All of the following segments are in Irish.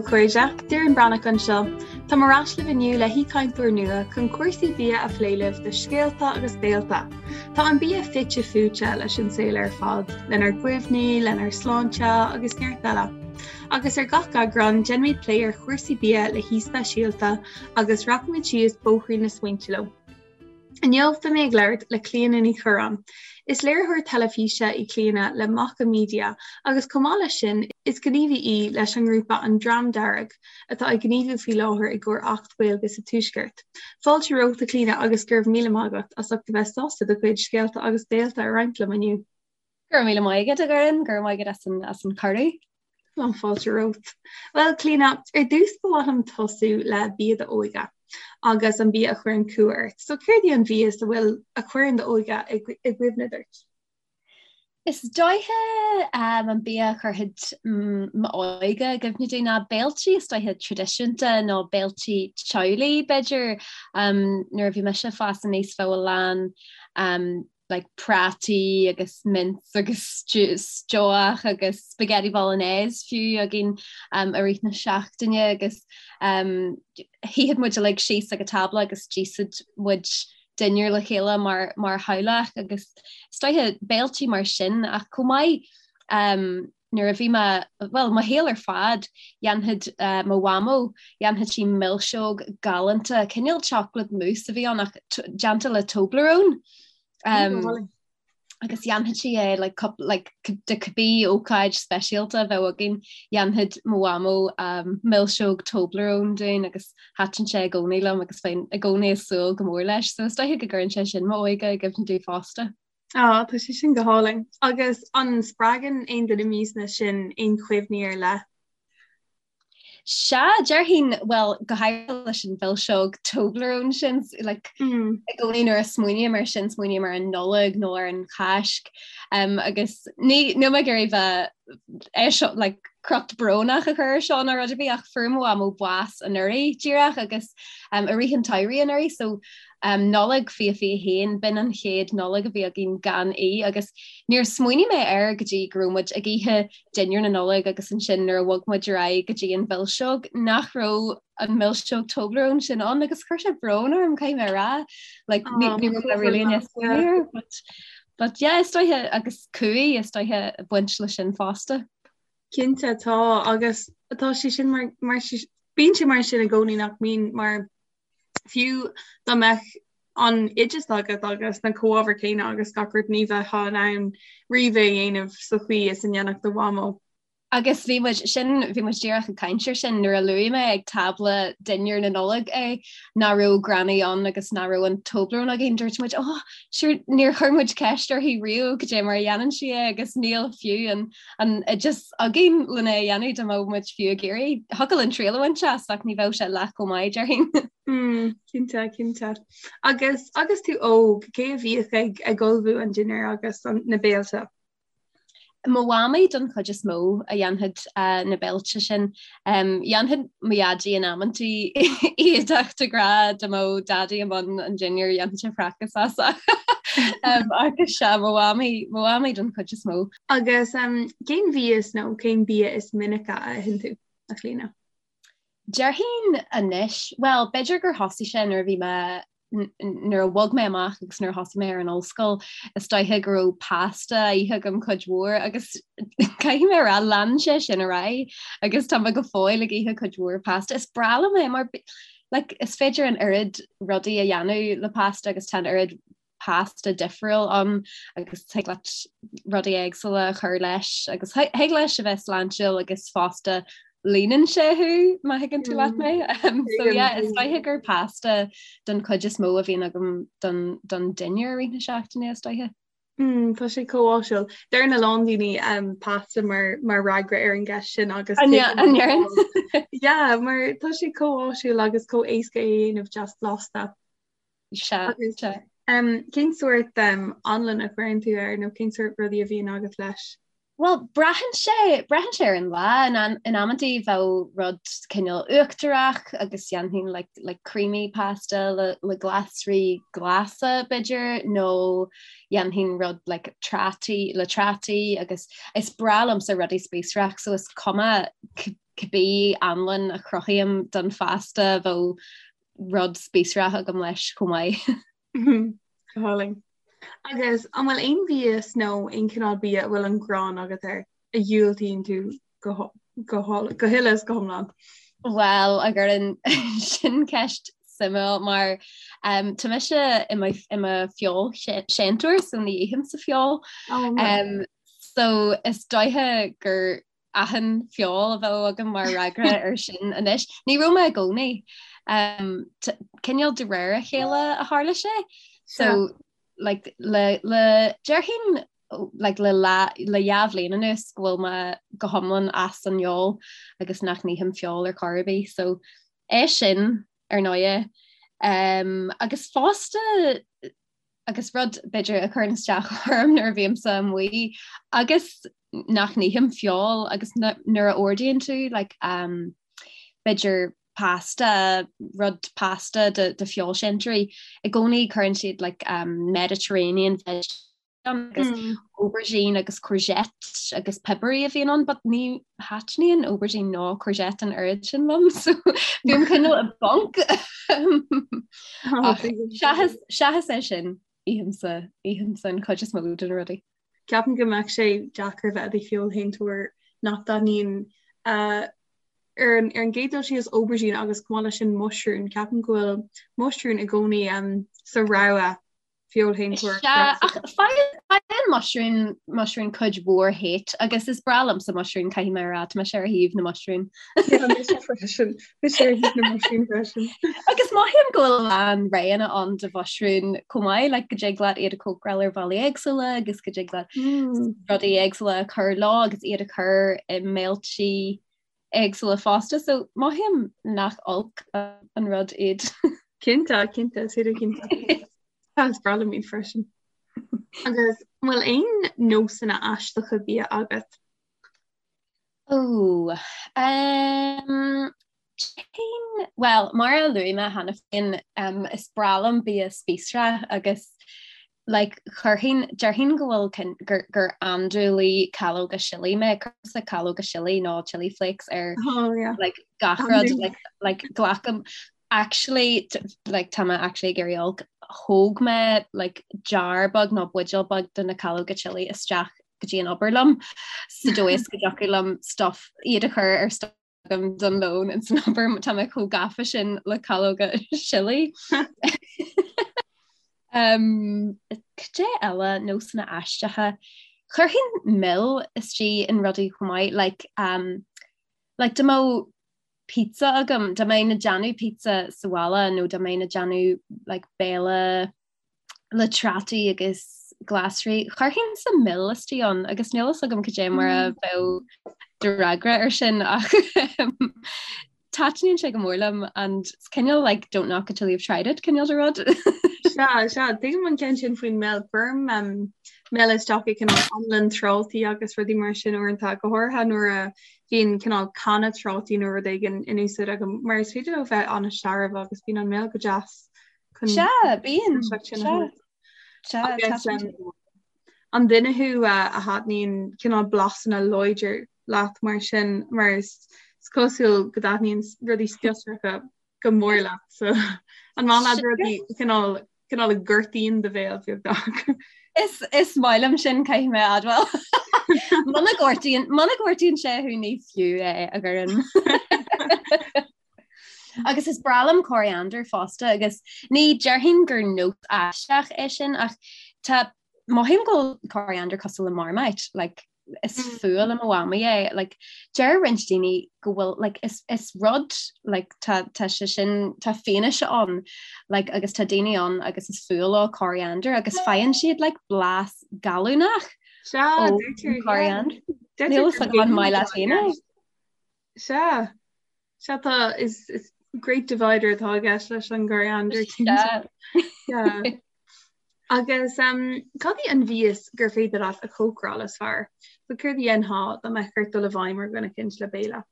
a chairde, Doireann Breathnach anseo. Táim ar ais libh inniu le haoichainteoir nua chun cúrsaí bia a phlé libh do Scéalta agus Béalta. Tá an bia fite fuaite leis an saol ar fad, lenár gcuimhní, lenár sláinte agus neart eile. Agus ar gach eagrán, déanfaimid plé ar chúrsaí bia le haoi speisialta agus rachaimid síos bóithrín na smaointe leo. Inniu beidh mé ag labhairt le Clíona Ní Churráin. Is léiritheoir teilifíse í Clíona le Macha Media agus chomh maith leis sin is gníomhaí í leis an ngrúpa An Dream Dearg atá ag gníomhú faoi láthair i gcomhair Acht Gaeilge sa Tuaisceart. Fáilte romhat a Chlíona agus go raibh míle maith agat as ucht a bheith sásta do chuid scéalta agus béalta a roinnt liom inniu. Go raibh míle maith agat, a Dhoireann, go raibh maith agat as an, as an cuireadh. Lán fáilte romhat. Bhuel, Clíona, ar dtús ba mhaith liom tosú le bia d'óige agus an bia a chuireann cumha ort. So céard í an mhias a bhfuil a chuireann d'óige i gcuimhne duit? Is dóiche um, an bia a chuirfeadh m'óige i gcuimhne domh ná béiltí is dóiche traidisiúnta nó béiltí teaghlaigh b'fhéidir. Um, nuair a bhí mise ag fás aníos bheadh a lán um, like prátaí agus mince agus stobhach agus spaghetti bolognese fiú againn um, i rith na seachtaine agus um, shuífeadh muid uilig síos ag an tábla agus d'íosfadh muid dinnéar le chéile mar, mar theaghlach agus is dóiche béiltí mar sin ach chomh maith um, nuair a bhí mé, bhuel, mo shaol ar fad, dhéanfadh uh, mo mhamó, dhéanfadh sí milseog galánta, cineál chocolate mousse a bhí ann ach déanta le Toblerone. Um, agus dhéanfadh sí é like, like, do cibé ócáid speisialta a bheadh againn, dhéanfadh mo mhamó um, milseog Toblerone dúinn agus thaitin sé i gcónaí liom agus bheinn i gcónaí ag súil go mór leis, so is dóiche go gcuireann sé sin m'óige i gcuimhne domh fosta. Á, tá sé sin go hálainn. Agus an spreagann aon de na miasanna sin aon chuimhní ar leith? Sea, déarfainn, bhuel, go háirithe leis an mhilseog Toblerone sin, like, mm. i gcónaí nuair a smaoiním air sin, smaoiním ar an Nollaig nó ar an Cháisc, um, agus ní, níl mé ag iarraidh bheith é seo, like, crot brónach a chur ar seo ná rud ar bith ach fuair mo mhamó bás anuraidh díreach agus um, i rith an tsamhraidh anuraidh, so Nollaig 2021, b'in an chéad Nollaig a bhí againn gan í agus níor smaoinigh mé air go dtí go raibh muid ag ithe dinnéar na Nollag agus ansin nuair a bhog muid ar aghaidh go dtí an mhilseog nach raibh an mhilseog Toblerone sin ann agus chuir sé brón orm caithfidh mé a rá. Like, ní raibh mé really in smaoineamh air, but, but yeah, is dóiche agus cumhaidh is dóiche ag baint leis sin fosta. Cinnte tá agus tá sé sin mar, mar bíonn sé mar sin i gcónaí nach mbíonn mar Fiú dá mbeadh an oideas agat agus na comhábhair céanna agus gach rud ní bheifeá in ann riamh é a dhéanamh sa chaoi is a ndéanfadh do mhamó. Agus bhí muid, sin, bhí muid díreach ag caint air sin nuair a luaigh mé ag tábla dinnéar na Nollag é, nach raibh Granny ann agus nach raibh an Toblerone againn, dúirt muid, oh, sure, níor chuir muid ceist uirthi riamh cad é mar a dhéanann sí é agus níl fiú an an oideas againn lena a dhéanamh dá mbeadh muid fiú ag iarraidh. Thiocfadh linn triail a bhaint as ach ní bheadh sé leath chomh maith, déarfainn. Mm, cinnte, cinnte. Agus agus tú óg, cé a bhíodh ag ag ullmhú an dinnéir agus an, na béilte? Mo mhamaí don chuid is mó a dhéanfadh uh, na béilte sin. Um, dhéanfadh mo dhaidí in amantaí iad ach de ghnáth dá mbeadh daidí i mbun an dinnéir dhéanfadh sé fracas as. um, agus sea mo mhamaí, mo mhamaí don chuid is mó. Agus cén mhias nó cén bia is minice a itheann tú, a Chlíona? Déarfainn anois, bhuel, b'fhéidir gur thosaigh sé nuair a bhí mé, nuair a bhog mé amach agus nuair a thosaigh mé ar an ollscoil, is dóiche go raibh pasta á ithe agam cuid mhór agus caithfidh mé a rá, lean sé sin ar aghaidh agus tá mé go fóill ag ithe cuid mhór pasta. Is breá liom é mar like, is féidir an oiread rudaí a dhéanamh le pasta agus tá an oiread pasta difriúil ann agus thig leat rudaí éagsúla a chur leis agus thig leis a bheith sláintiúil agus fosta líonann sé thú má thuigeann tú leat mé. Um, so yeah, is dóiche gur pasta don chuid is mó a bhíonn agam don, don dinnéar i rith na seachtaine is dóiche. Mm, tá sé chomh áisiúil. Deireann a lán daoine um, pasta mar, mar fhreagra ar an gceist sin agus An ndeireann? Yeah, mar tá sé chomh áisiúil agus chomh éasca é a dhéanamh deas blasta. Sea, sea. Cén sórt anlann a chuireann tú air nó cén sórt rudaí a bhíonn agat leis? Bhuel, braitheann sé, braitheann sé ar an lá. In, in amantaí bheadh rud cineál uachtarach agus dhéanfainn like, like creamy pasta le, le glasraí glasa b'fhéidir nó dhéanfainn rud like trátaí le trátaí agus is breá liomsa rudaí spíosrach so is cuma cibé anlann a chruthaím don phasta bheadh rud spíosrach agam leis chomh maith. Go hálainn. Agus an bhfuil aon mhias nó aon chineál bia a bhfuil an ghráin agat air a dhiúltaíonn tú go go huile is go hiomlán? Bhuel, a Dhoireann, sin ceist suimiúil mar um, tá mise i mo, i mo feoilséantóir so ní ithimse feoil. Oh, um, so is dóiche gur achan feoil a bheadh agam mar fhreagra ar sin anois. Ní raibh mé i gcónaí. Um, cineál de réir a chéile a tharla sé. So like, le, le déarfainn like, le, le, le dhá bhliain anuas go bhfuil mé go hiomlán as an fheoil agus nach n-ithim feoil ar chor ar bith. So é sin ar ndóighe. Um, agus fosta agus rud b'fhéidir a chuireann isteach orm nuair a bhímse amuigh agus nach n-ithim feoil agus nuair a ordaíonn tú like, um, b'fhéidir pasta, rud pasta de, de feoilséantóirí, i gcónaí cuireann siad like, um, Mediterranean veg agus mm. aubergine agus courgette agus piobarthaí a bhíonn ann, but ní thaitníonn aubergine ná courgette an oiread sin liom, so bím cineál i bponc. Seachas é sin ithimse ithimse an chuid is mó de na rudaí. Ceapaim go mbeadh sé deacair bheith i do feoilséantóir nach dtaitníonn uh, ar an ar an gcéad dul síos aubergine agus chomh maith leis sin muisriún, ceapaim go bhfuil muisriún i gcónaí um, sa rogha feoilséantóir. Sea, ach faigheann muisriún muisriún cuid mhór hate agus is breá liomsa muisriún caithfidh mé a rá, tá mise ar thaobh na muisriún. Yeah, mise freisin. Mise ar thaobh na muisriún freisin. Agus mothaím go bhfuil a lán roghanna ann de mhuisriúin chomh maith, like go dtig leat iad a chócaráil ar bhealaí éagsúla agus go dtig leat mm. rudaí éagsúla a chur leo agus iad a chur i mbéiltí éagsúla fosta, so mothaím nach olc an rud iad. Cinnte, cinnte, is féidir cinnte. Is breá liom iad freisin. Agus an bhfuil aon nósanna aisteacha bia agat? Ó, um, cén, well, mar a luaigh mé cheana féin, um, is breá liom bia spíosrach agus like chuirfinn, déarfainn go bhfuil cin, gur, gur andúiligh calóga sillí mé, cuirimse calóga sillí nó chili flakes ar Oh yeah. like gach rud, like, like glacaim, actually like tá mé actually ag éirí olc, thóg mé like jar beag nó buidéal beag de na calóga chili isteach go dtí an obair liom sa dóigh is go dtiocfadh liom stuff iad a chur ar stuff agam don lón in san obair tá mé chomh gafa sin le calóga sillí. Um, Cad é eile nósanna aisteacha. Chuirfinn mil istigh in rudaí chomh maith, like, um, like dá mbeadh pizza agam, dá mbeinn ag déanamh pizza sa bhaile nó dá mbeinn ag déanamh like, béile le trátaí agus glasraí. Chuirfinnse mil istigh ann agus níl fhios agam cad é mar a mm. bheadh do fhreagra ar sin ach taitníonn sé go mór liom and it's cineál like don't knock it till you've tried it cineál de rud. Sea, sea, tuigim an ceann sin faoin mil cuirim um, mil isteach i cineál anlann trátaí agus rudaí mar sin uaireanta go háirithe nuair a bhíonn cineál canna trátaí nó rud éigin in úsáid agam mar is féidir leo bheith an-searbh agus bíonn an mil go deas Sea, bíonn. Sea, An duine thú a thaitníonn cineál blasanna láidir leat mar sin mar is cosúil go dtaitníonn rudaí spiosracha go mór leat so an maith leat rudaí cineál cineál a ghortaíonn do bhéal beagnach. Is is maith liom sin caithfidh mé a admháil. Muna gortaíonn muna gortaíonn sé thú ní fiú é a Dhoireann. Agus is breá liom coriander fosta agus ní déarfainn gur nós aisteach é sin ach tá mothaím go bhfuil coriander cosúil le Marmite, like, is mm. fuath le mo mhamaí é, like, deir roinnt daoine go bhfuil like, is, is rud like, tá, tá sé sin tá fianaise ann like, agus tá daoine ann agus is fuath leo coriander agus faigheann siad like, blas gallúnach ó coriander. Níl a fhios agam an maith leat féin é. Sea. Sea tá is is great divider atá i gceist leis an gcoriander cinnte. Yeah. Agus um, cad í an mhias gur féidir leat a chócaráil is fearr? So céard a dhéanfá dá mbeadh ort dul i bhfeidhm ar dhuine eicínt le béile?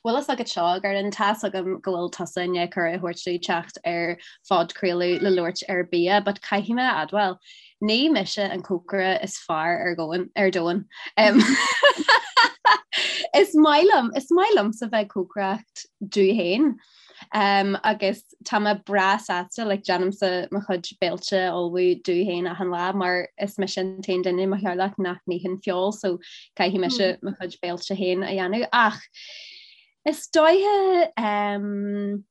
Bhfuil fhios agat seo, a Dhoireann, tá's agam go bhfuil tusa i ndiaidh cuireadh a thabhairt domh teacht ar phodchraoladh le labhairt ar bia, but caithfidh mé a admháil, Ní mise an cócaire is fearr ar dhomhan, ar domhan. Is maith liom, is maith liomsa bheith ag cócaireacht domh féin. Um, agus tá mé breá sásta like, déanaimse mo chuid béilte a ullmhú domh féin achan lá mar is mise an t-aon duine i mo theaghlach nach n-itheann feoil so caithfidh mise mm. mo chuid béilte féin a dhéanamh ach is dóiche um,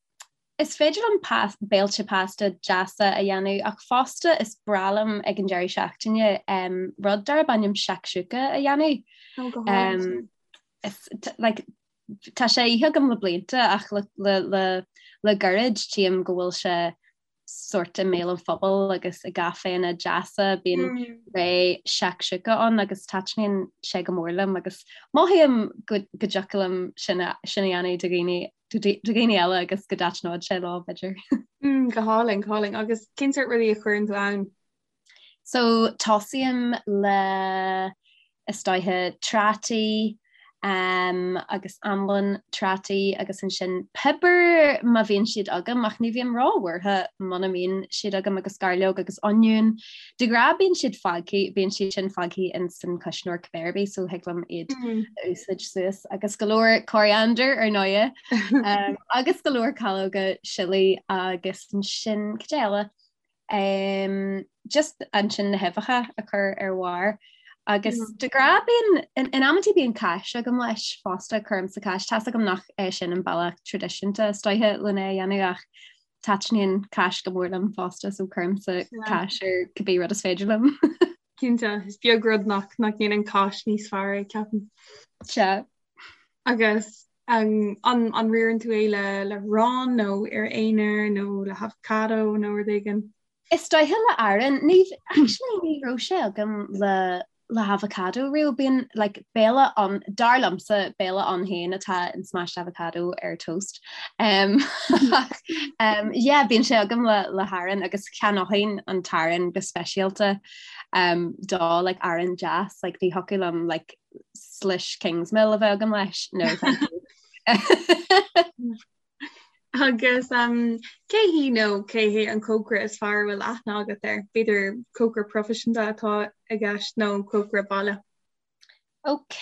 Is féidir liom béilte pasta deasa a dhéanamh ach fosta is breá liom ag an deireadh seachtaine um, rud darb ainm shakshuka a dhéanamh. Oh, go um, is, like, tá sé ithe agam le blianta ach le, le, le, le gairid tchím go bhfuil sé sort i mbéal an phobail agus i gcaiféanna deasa bíonn mm. ré shakshuka ann agus taitníonn sé go mór liom agus mothaím go, go dtiocfadh liom sin a, sin a dhéanamh do dhaoine do dhaoine eile agus go dtaitneodh sé leo b'fhéidir. Mm, go hálainn, go hálainn. Agus cén sórt rudaí a chuireann tú ann? So tosaím le is dóiche trátaí um, agus anlann trátaí agus ansin piobar má bhíonn siad agam ach ní bhím róbhuartha muna mbíonn siad agam agus gairleog agus oinniún. De ghnáth bíonn siad fágtha, bíonn siad sin fágtha in san cuisneoir cibé ar bith so thig liom iad mm. a úsáid suas agus go leor coriander ar ndóighe um, agus go leor calóga sillí agus ansin cad eile um, just ansin na huibheacha a chur ar bharr agus mm. de ghnáth bíonn in, in amantaí bíonn cáis agam leis fosta cuirimse cáis tá's agam nach é sin an bealach traidisiúnta is dóiche lena dhéanamh ach taitníonn cáis go mór liom fosta so cuirimse cáis ar cibé rud is féidir liom. Cinnte, is beag rud nach nach ndéanann cáis níos fearr é ceapaim. Sea. Agus an an an riarann tú é le le arán nó ar aonar nó le havocado nó rud éigin? Is dóiche le arán, ní actually ní raibh sé agam le le havocado riamh. Bíonn like béile ann dar liomsa béile ann féin atá in smashed avocado ar toast. Um, um, yeah, bíonn sé agam le le harán agus cheannóinn an t-arán go speisialta um, do like arán deas like ní thiocfadh liom like slice Kingsmill a bheith agam leis no thank you. Agus um, cé hí nó cé hé an cócaire is fearr a bhfuil aithne agat air? B'fhéidir cócaire proifisiúnta atá i gceist nó cócaire baile? Ok,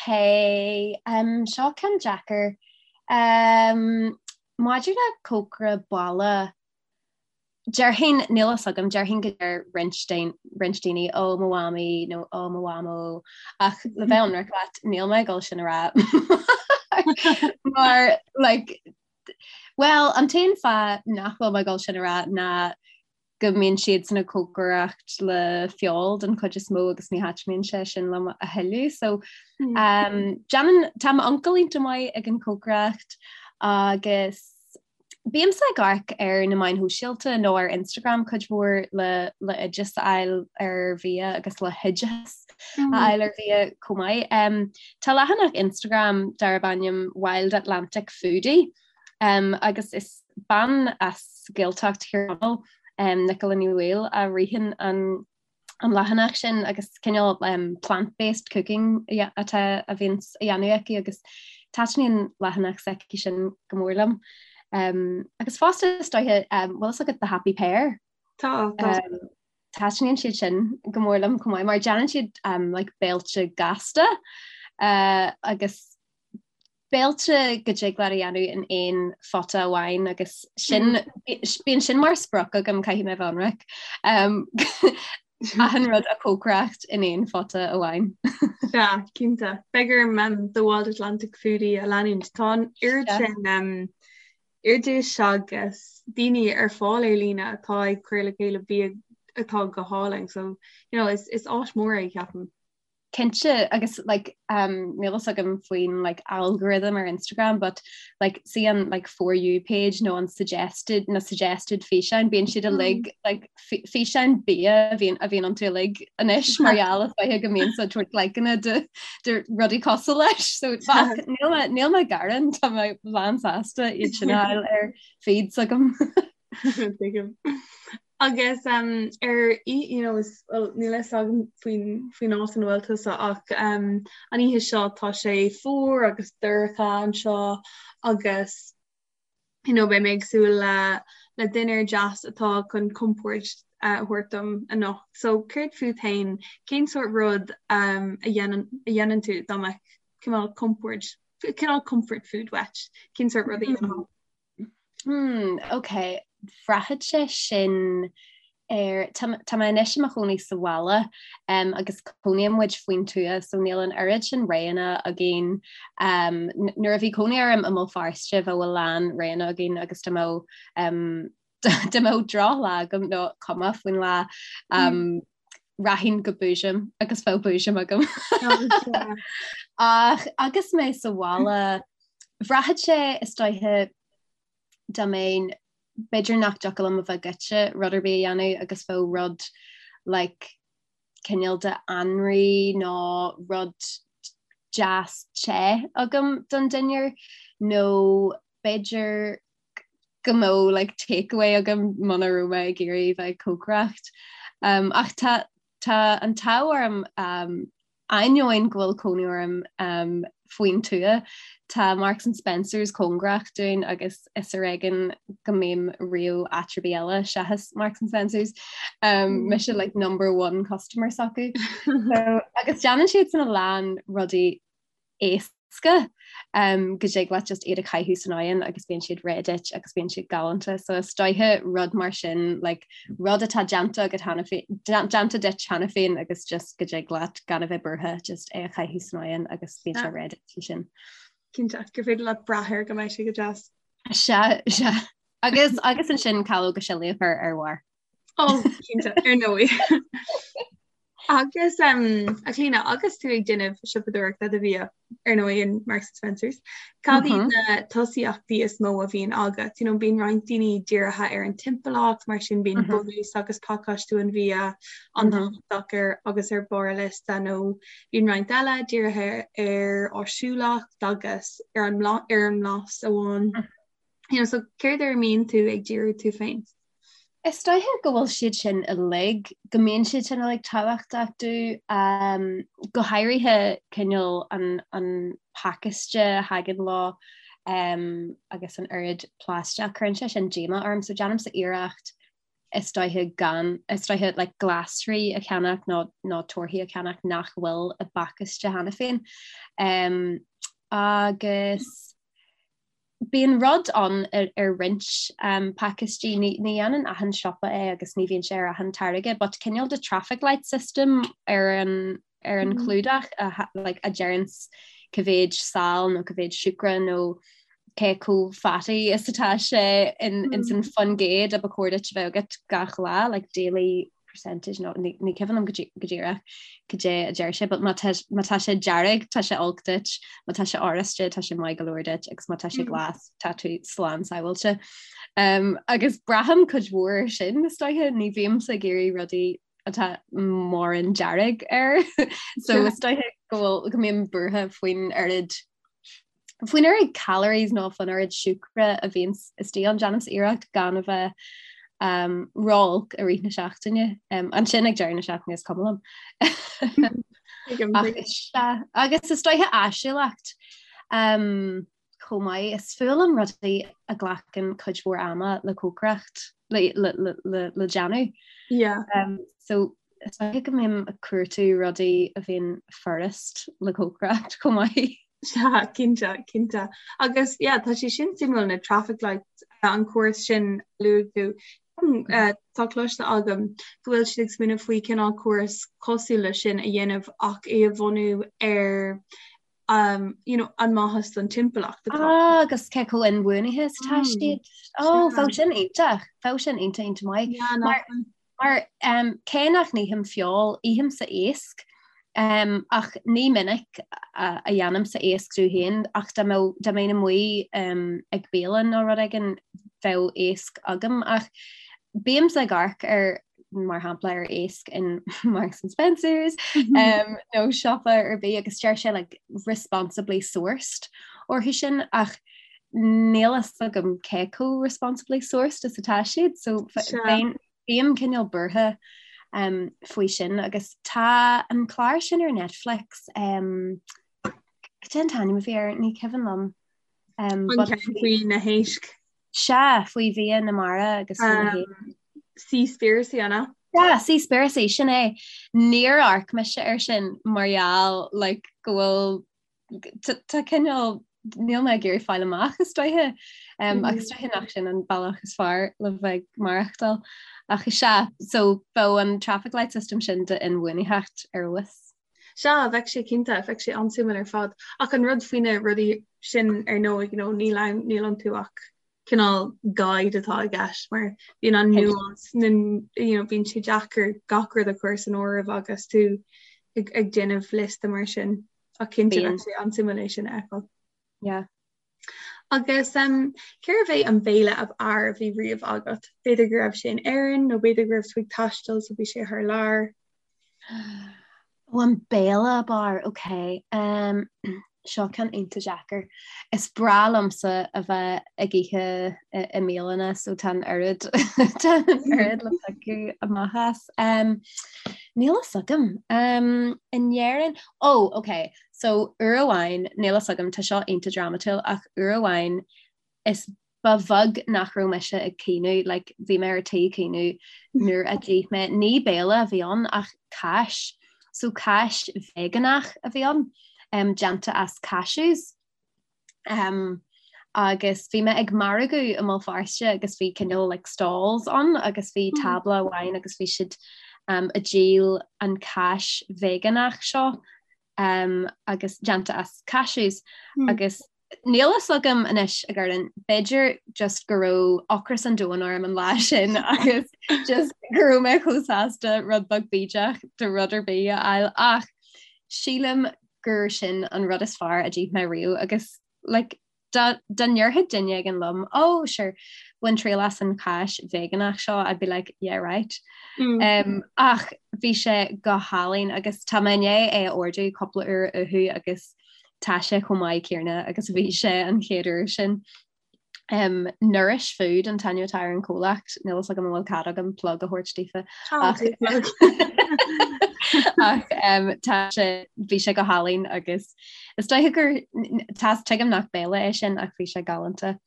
um, seo ceann deacair. Um, maidir le cócaire baile, Déarfainn, níl fhios agam, déarfainn go deir roinnt roinnt daoine ó mo mhamaí nó ó mo mhamó ach le bheith ionraic leat níl mé ag dul sin a rá mar like well an t-aon fáth nach bhfuil mé ag dul sin a rá ná go mbíonn siad san ag cócaireacht le feoil den chuid is mó agus ní thaitníonn sé sin liom a thuilleadh so um, déanann tá m'uncail iontach maith ag an chócaireacht agus Bímse ag amharc ar na meáin shóisialta nó ar Instagram cuid mhór le le oideas a fháil ar bhia agus le hoideachas a fháil ar bhia chomh maith. Tá leathanach Instagram darb ainm Wild Atlantic Foodie agus is bean as Gaeltacht Thír Chonaill, Nicola Ní Bhaoill, a ritheann an an leathanach sin agus cineál plant-based cooking atá a bhíonn á dhéanamh aici agus taitníonn leathanach s'aici sin go mór liom. Um, agus fosta is dóiche um, bhfuil fhios agat The Happy Pear? Tá, tá. Um, taitníonn siad sin go mór liom chomh maith mar déanann siad um, like, béilte gasta uh, agus béilte go dtig leat a dhéanamh in aon phota amháin agus sin bíonn sin mar sprioc agam caithfidh mé bheith ionraic. Um, achan rud a chócaireacht in aon phota amháin. Sea, cinnte. Beidh orm um, The Wild Atlantic Foodie a leanúint. Tá an oiread sin um, oidis agus daoine ar fáil ar líne atá ag cur le chéile bia atá go hálainn. So, you know, is, is áis mór é ceapaim. Cinnte agus like um níl fhios agam faoin like algorithm ar Instagram but like see an like for you page nó an suggested na suggested físeáin bíonn siad uilig mm. like físeáin bia a bhíonn a bhíonn iontu uilig anois mar gheall is dóiche go mbímse ag tabhairt likeanna do do rudaí cosúil leis so níl mé níl mé ag gearán tá mé lán sásta iad sin a fháil ar feeds agam. Tuigim. Agus um, ar you know, is, well, níl fhios agam faoin faoin áit ina bhfuil tusa ach um, an oíche seo tá sé fuar agus dorcha anseo agus you know, beidh mé ag súil le le dinnéar deas atá chun compord uh, a thabhairt dom anocht. So céard fút féin, cén sórt rud um, a dhéanann a dhéanann tú dá mbeadh cineál compord? cineál comfort food uait, cén sórt rudaí a dhéanfá? Hmm, ok. Bhraithfeadh sé sin ar, tá, tá mé anois i mo chónaí sa bhaile um, agus cónaíonn muid faoin tuath so níl an oiread sin roghanna againn. Um, nuair a bhí cónaí orm i mBéal Feirste bheadh a lán roghanna againn agus dá mbeadh um, dá mbeadh drochlá agam nó cuma faoin lá um, rachainn go Boojum agus bheadh Boojum agam. Ach agus mé sa bhaile bhraithfeadh sé is dóiche dá mbeinn b'fhéidir nach dtiocfadh liom a bheith goite rud ar bith a dhéanamh agus bheadh rud like cineál de anraith nó rud deas te agam don dinnéar nó b'fhéidir go mbeadh like takeaway agam muna raibh mé ag iarraidh bheith ag cócaireacht. Um, ach tá tá an t-ádh orm um, ainneoin go bhfuil cónaí orm um, faoin tuath, tá Marks and Spencers cóngarach dúinn agus is ar éigean go mbím riamh áit ar bith eile seachas Marks and Spencers. Um, mm. Mise like number one customer s'acu. so, agus déanann siad san a lán rudaí éasca go dtig leat just iad a chaitheamh san oigheann agus bíonn siad réidh duit agus bíonn siad galánta. So is dóiche rud mar sin like, rud atá déanta agat cheana féin déanta duit cheana féin agus just go dtig leat gan a bheith buartha just é a chaitheamh san oigheann agus bíonn sé réidh duit sin. Cinnte gur féidir leat brath air go mbeidh sé go deas. Sea, sea. Agus agus ansin calóga sillí a chur ar bharr. Ó cinnte ar ndóigh. Agus um, a Chlíona agus tú ag déanamh siopadóireachta do bhia ar ndóigh in Marks and Spencers, cad iad mm -hmm. na tosaíochtaí is mó a bhíonn agat? You know, bíonn roinnt daoine dírithe ar an timpeallacht, mar sin bíonn mm -hmm. bunús agus pacáistiú an bhia an-tábhachtach mm -hmm. ar agus ar barr a liosta nó bíonn roinnt eile dírithe ar áisiúlacht agus ar an ar an mblas amháin. Mm -hmm. You know, so céard ar a mbíonn tú ag díriú tú féin? Is dóiche go bhfuil siad sin uilig, go mbíonn siad sin uilig tábhachtach domh, go háirithe cineál an an pacáiste a thagann leo agus an oiread plaisteach, cuireann sé sin díomá orm so déanaimse iarracht is dóiche gan, is dóiche like glasraí a cheannach nó nó torthaí a cheannach nach bhfuil i bpacáiste cheana féin. Agus Bíonn rud ann ar roinnt pacáistí, ní dhéanann achan siopa é agus ní bhíonn sé ar achan táirge, but cineál de traffic light system ar an ar an chlúdach a like a deireanns cá mhéid sal nó cá mhéid siúcra nó cé chomh fatty is atá sé in in san faoin gcéad a ba chóir duit a bheith agat gach lá, like daily percentage nó ní ní cuimhin liom go dí- go díreach cad é a deir sé, but má tá má tá sé dearg tá sé olc duit, má tá sé oráiste tá sé maith go leor duit agus má tá sé glas tá tú slán sábháilte. Um, agus braithim cuid mhór air sin is dóiche, ní bhímse ag iarraidh rudaí atá mórán dearg air so is dóiche go bhfuil go mbím buartha faoin oiread Faoin oiread calories nó faoin oiread siúcra a bhíonn istigh ann, déanaimse iarracht gan a bheith um, ró-olc i rith na seachtaine. Um, ansin ag deireadh na seachtaine is cuma liom. Agus is dóiche áisiúlacht um, chomh maith is fuath liom rudaí a ghlacann cuid mhór ama le cócaireacht le, le, le, le, le déanamh. Yeah. Um, so is dóiche go mbím ag cuartú rudaí a bhíonn furast le cócaireacht chomh maith. Sea, cinnte, cinnte. Agus yeah, tá sé sin suimiúil na traffic lights, an córas sin a luaigh tú. Tá cloiste agam go bhfuil siad ag smaoineamh faoi cineál córas cosúil leis sin a dhéanamh ach é a bhunú ar um, you know, an maitheas don timpeallacht atá. Ah, agus cé chomh inbhuanaithe is atá siad. Ó, bheadh sin iontach, bheadh sin iontach iontach maith. Yeah, Mar Mar cé nach n-ithim feoil, ithimse iasc, ach ní minic a dhéanaimse iasc domh féin, ach dá mbeadh, dá mbeinn amuigh ag bialann nó rud éigin, bheadh iasc agam. Ach bímse ag amharc ar, mar shampla, ar iasc in Marks and Spencers nó siopa ar bith agus deir sé like responsibly sourced orthu sin ach níl a fhios agam cé chomh responsibly sourced is atá siad, so bheinn, bím cineál buartha um, faoi sin agus tá an clár sin ar Netflix um, cad é an t-ainm a bhí air ní cuimhin liom. Um, an ceann faoi na héisc? Sea, faoi bhia na mara agus faoi na héisc. Seaspiracy an ea? Yeah, Seaspiracy, sin é. Níor amharc mise air sin mar gheall like, go bhfuil tá cineál Níl mé ag iarraidh fáil amach is dóiche agus is dóiche nach sin an bealach is fearr le bheith ag maireachtáil. Ach is ea, so bheadh an traffic light system sin d'inbhuanaitheacht ar fheabhas. Sea, bheadh sé cinnte, bheadh sé an-suimiúil ar fad. Ach an rud faoi na rudaí sin ar ndóigh, you know, níl ann, níl iontu ach cineál guide atá i gceist mar bíonn an nuance, na, you know, bíonn sé deacair gach rud a chur san áireamh agus tú ag, ag déanamh liosta mar sin. Ach cinnte bheadh sé an-suimiúil é sin a fheiceáil. Yeah. Agus um, cérbh é an béile ab fhearr a bhí riamh agat? B'fhéidir go raibh sé in Éirinn nó b'fhéidir go raibh tú ag taisteal so bhí sé thar lear. Ó an béile ab fhearr, ok. Um, seo ceann iontach deacair. Is breá liomsa a bheith ag ithe i mbialanna so tá an oiread tá an oiread le piocadh amach as. Um, níl a fhios agam. Um, in Éirinn, oh, ok, so uair amháin, níl a fhios agam, tá seo iontach drámatúil ach uair amháin is ba bheag nach raibh mise ag caoineadh, like, bhí mé ar tí caoineadh nuair a d'ith mé, ní béile a bhí ann ach cáis, so cáis veigeánach a bhí ann, um, déanta as cashews. Um, agus bhí mé ag margadh i mBéal Feirste agus bhí cineál like, stalls ann agus bhí hmm. tábla amháin agus bhí siad um, ag díol an cáis veigeánach seo um, agus déanta as cashews hmm. agus Níl fhios agam anois a Gordon, b'fhéidir just go raibh ocras an domhain orm an lá sin agus just go raibh mé chomh sásta rud beag bídeach de rud ar bith a fháil ach sílim gur sin an rud is fearr a d'ith mé riamh agus like, dá ndéarfadh duine éigin liom, oh sure, bain triail as an cháis veigeánach seo, I'd be like, yeah right. Mm. Um, ach bhí sé go hálainn agus tá mé i ndiaidh é a ordú cúpla uair uathu agus Tá sé chomh maith céanna agus a bhí sé an chéad uair sin. Um, Nourish Food an t-ainm atá ar an chomhlacht, níl fhios agam an bhfuil cead agam plug a thabhairt daofa. Ach, ach um, tá sé bhí sé go hálainn agus is dóiche gur tá tuigim nach béile é sin ach bhí sé galánta.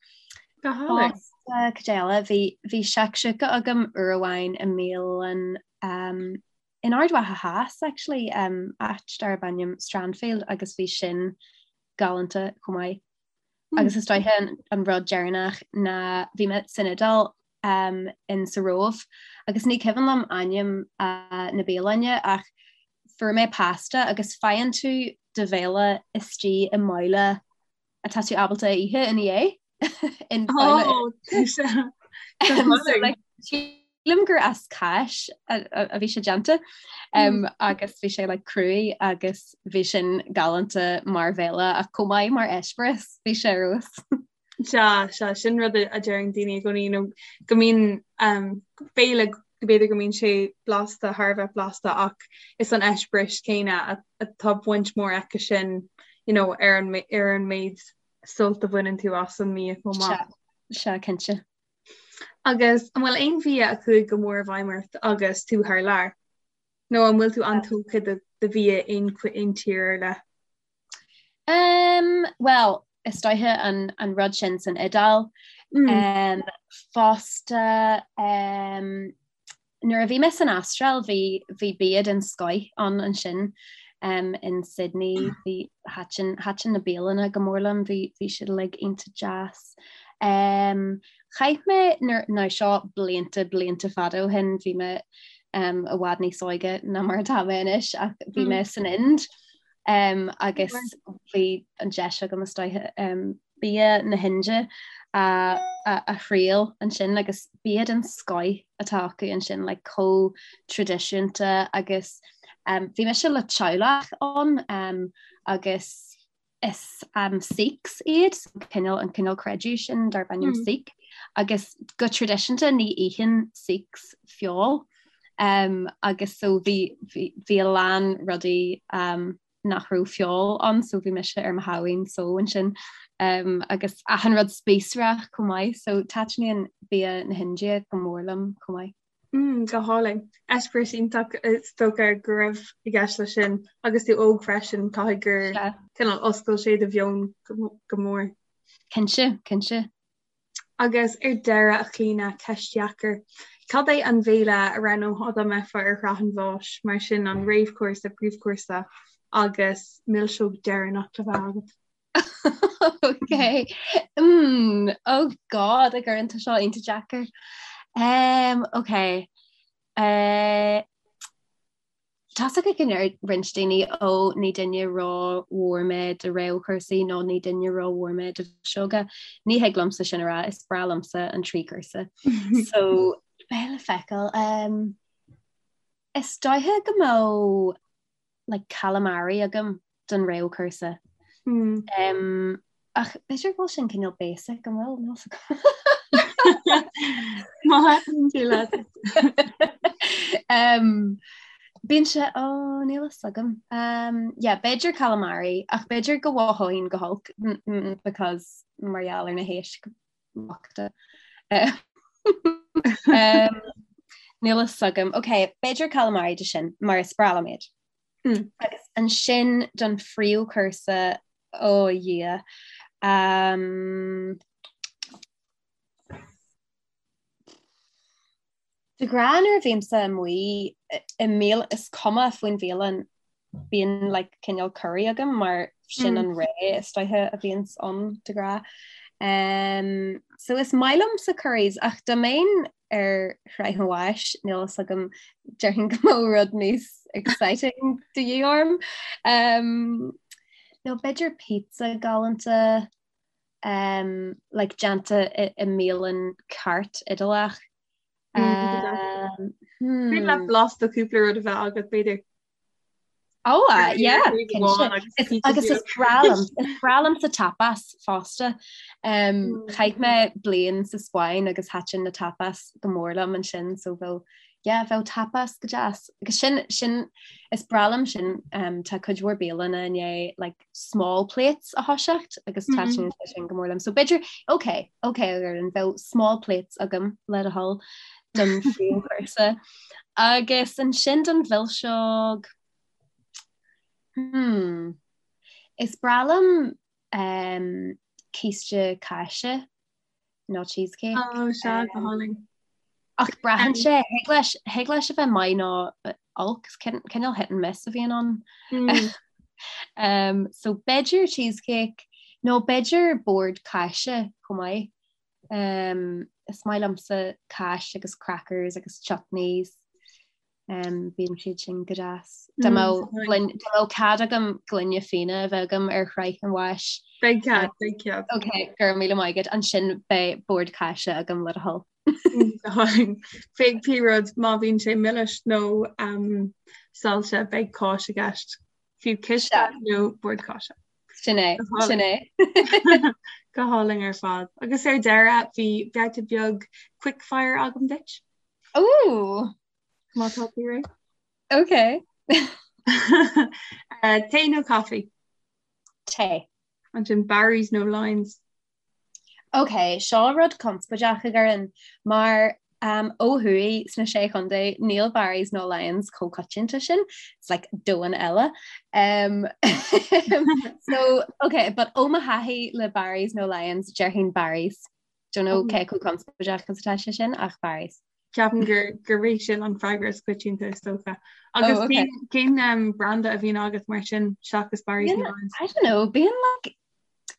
Go hálainn. Cad eile bhí bhí shakshuka agam uair amháin i mbialann um, In Ard Mhacha Theas actually, áit darb ainm Strandfield agus bhí sin galánta chomh maith. Agus is dóiche an rud deireanach ná bhí mé san Iodáil in sa Róimh agus ní cuimhin liom ainm na bialainne ach fuair mé pasta agus faigheann tú do bhéile istigh i mbabhla atá tú ábalta a ithe ina dhiaidh. In babhla. Sílim gur as cáis a bhí sé déanta agus bhí sé like cruaidh agus bhí sin galánta mar bhéile ach chomh maith mar eispéireas bhí sé ar fheabhas. Sea, sea, sin rud a deireann daoine i gcónaí nó go mbíonn béile b'fhéidir go mbíonn sé blasta, thar a bheith blasta ach is an eispéireas céanna atá baint mhór aici sin you know, ar an ar an méid sult a bhaineann tú as an mbia chomh maith. Sea, sea, cinnte. Agus an bhfuil aon bhia a chuaigh go mór i bhfeidhm ort agus tú thar lear? Nó an bhfuil tú an-tógtha de bhia aon aon tír ar leith? Um, well, is dóiche an, an rud sin san Iodáil. Mm. Um, fosta um, Nuair a bhí mé san Astráil bhí bhí bia den scoith ann ansin um, in Sydney bhí thaitin thaitin na bialanna go mór liom bhí bhí siad uilig iontach deas. Um, chaith mé nuair now seo blianta blianta fada ó shin bhí mé um, i bhfad níos óige ná mar atá mé anois ach bhí mé san Ind um, agus bhí an deis agam is dóiche um, bia na hInde a thriail ansin agus bia den scoith atá acu ansin like chomh traidisiúnta agus um, bhí mise le teaghlach ann um, agus is um, Sikhs iad so cineál an cineál creideamh sin darb ainm mm. Sikh agus go traidisiúnta ní itheann Sikhs feoil um, agus so bhí, bhí, bhí a lán rudaí um, nach raibh feoil ann so bhí mise ar mo shamhaoin só ansin um, agus achan rud spíosrach chomh maith so taitníonn bia na hIndia go mór liom chomh maith. Mm, go hálainn. Eispéireas iontach is dócha go raibh i gceist leis sin agus tú óg freisin caithfidh gur cineál oscail sé do mheon go, go mór. Cinnte, cinnte. Agus ar deireadh, a Chlíona, ceist dheacair. Cad é an bhéile a roghnófá dá mbeifeá ar shraith an bháis, mar sin an réamhchúrsa, príomhchúrsa agus milseog deireanach le bheith agat? Ok. Mm, oh God, a Dhoireann tá seo iontach deacair. Um, ok. Uh, Tá's agam go ndeir roinnt daoine ó ní duine ró-mhór mé do réamhchúrsaí nó ní duine ró-mhór mé do mhilseoga. Ní thig liomsa sin a rá, is breá liomsa an trí chúrsa. So beidh le feiceáil. Um, is dóiche go mbeadh like calamari agam don réamhchúrsa. Mm. Um, ach b'fhéidir go bhfuil sin cineál basic an bhfuil níl Má tú leat. um, Bíonn sé ó níl a fhios agam. Um, yeah, b'fhéidir calamari ach b'fhéidir go mhothóinn go holc because mar gheall ar na héisc bochta. Um, níl a fhios agam. Ok, b'fhéidir calamari de sin mar is breá liom iad. Mm. Agus ansin don phríomhchúrsa ó a Dhia. Um, De ghnáth nuair a bhímse amuigh i mbialann is cuma faoin bhialann bíonn like cineál curry agam mar sin an ré is dóiche a bhíonns ann de ghnáth. Um, so is maith liomsa curries ach dá mbeinn ar shraith an bháis níl fhios agam déarfainn go mbeadh rud níos exciting de dhíth orm. Um, nó b'fhéidir pizza galánta um, like déanta i, i mbialann ceart Iodálach. Um, hmm. le blas de cúpla rud a bheith agat b'fhéidir. Oh, uh, yeah, agus is breá liom is breá liomsa tapas fosta. Um, mm. Chaith mé bliain sa Spáinn agus thaitin na tapas go mór liom ansin so bheadh yeah, bheadh tapas go deas. Agus sin sin is breá liom sin um, tá cuid mhór bialanna i ndiaidh like, small plates a thoiseacht agus mm -hmm. sin go mór liom. So b'fhéidir ok, ok an bheadh small plates agam le do thoil don phríomhchúrsa. Agus ansin don mhilseog hmm, is breá liom um, císte cáise nó cheesecake. Oh, sea, go hálainn. Ach braitheann sé, thig leis, thig leis a bheith maith nó olc, cineál hit and miss a bhíonn ann. Mm. um, so b'fhéidir cheesecake nó b'fhéidir bord cáise chomh maith. Um, is maith liomsa cáis agus crackers agus chutneys. Um, bíonn siad sin go deas. Dá mbeadh mbeadh cead agam gloine fíona a bheith agam ar shraith an bháis. Beidh cead, beidh cead. Ok, go raibh míle maith agat ansin beidh bord cáise agam le do thoil. Beidh pé rud má bhíonn sé milis nó um, saillte beidh cáis i gceist. Fiú císte nó bord cáise. Sin é, sin é. Go hálainn ar fad. Agus ar deireadh bhí babhta beag quickfire agam duit. Ooh! Má tá tú réidh? Ok. Uh, tae nó caife? Tae. Ansin Barry's nó Lyons? Ok, seo rud conspóideach a Dhoireann, mar um, ó thuaidh sna Sé Chontae níl Barry's nó Lyons chomh coitianta sin, it's like domhan eile. Um, so, ok, but ó mo thaithí le Barry's nó Lyons, déarfainn Barry's. Don't know cé chomh conspóideach is atá sé sin ach Barry's. Ceapaim gur gurb é sin an freagra is coitianta is dócha. Agus oh, okay. cén um, branda a bhíonn agat mar sin seachas Barry's nó Lyons? I don't know, bíonn like,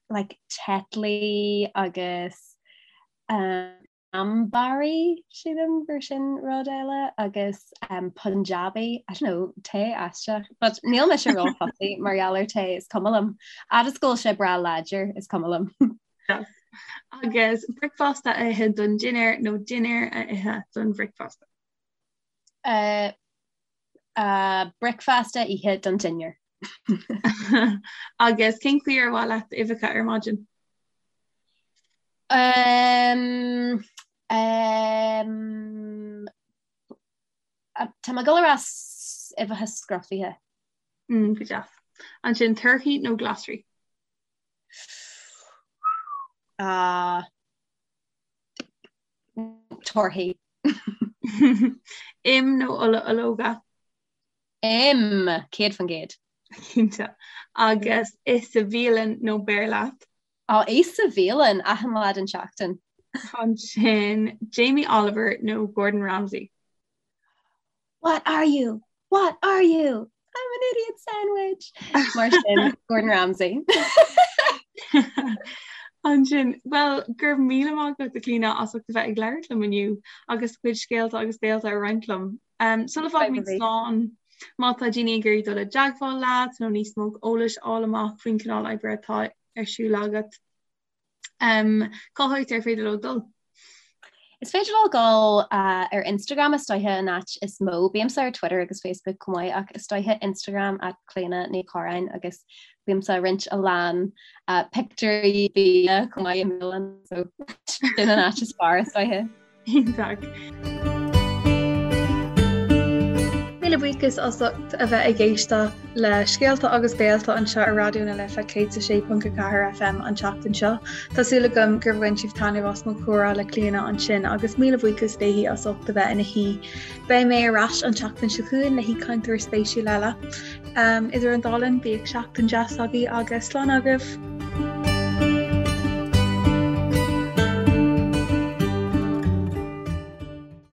like Tetley agus um, Ambari sílim gur sin rud eile agus um, Punjabi, I don't know, tae aisteach, but níl mise ró-fussy mar gheall ar tae is cuma liom. Fhad is go bhfuil sé breá láidir is cuma liom. Yes. Agus bricfeasta a ithe don dinnéar nó dinnéar a ithe don bhricfeasta? Uh, uh, bricfeasta a ithe don dinnéar. Agus cén chaoi ar mhaith leat uibheacha ar maidin? Um, um, tá mé ag dul a rá uibheacha scrofaithe. Mm, go deas. Ansin torthaí nó glasraí? Uh, torthaí. Im nó ola ológa? Im, 100%. Cinnte. Agus ith sa bhialann nó beir leat? Á, ith sa bhialann achan lá den tseachtain. Ansin Jamie Oliver nó Gordon Ramsay? What are you? What are you? I'm an idiot sandwich! Mar sin, Gordon Ramsay. Ansin, bhuel, go raibh míle maith agat, a Chlíona, as ucht a bheith ag labhairt liom inniu agus do chuid scéalta agus béalta a roinnt liom. Um, sula bhfágaimid slán, má tá daoine ag iarraidh dul i dteagmháil leat nó níos mó eolais a fháil amach faoin cineál oibre atá ar siúl agat, um, cá háit ar féidir leo dul? Is féidir leo dul ar Instagram is dóiche an áit is mó. Bímse ar Twitter agus Facebook chomh maith ach is dóiche Instagram at Clíona Ní Chorráin agus bímse ag roinnt a lán pictiúirí bia chomh maith i mbialann so sin an áit is fearr is dóiche. Iontach. Míle buíochas as ucht a bheith ag éisteacht le Scéalta agus Béalta anseo ar Raidió na Life 106.4 FM an tseachtain seo. Tá súil agam gur bhain sibh taitneamh as mo chomhrá le Clíona ansin agus míle buíochas léi as ucht a bheith ina haoi. Beidh mé ar ais an tseachtain seo chugainn le haoichainteoir spéisiúil eile. Idir an dá linn, bíodh seachtain deas agaibh agus slán agaibh!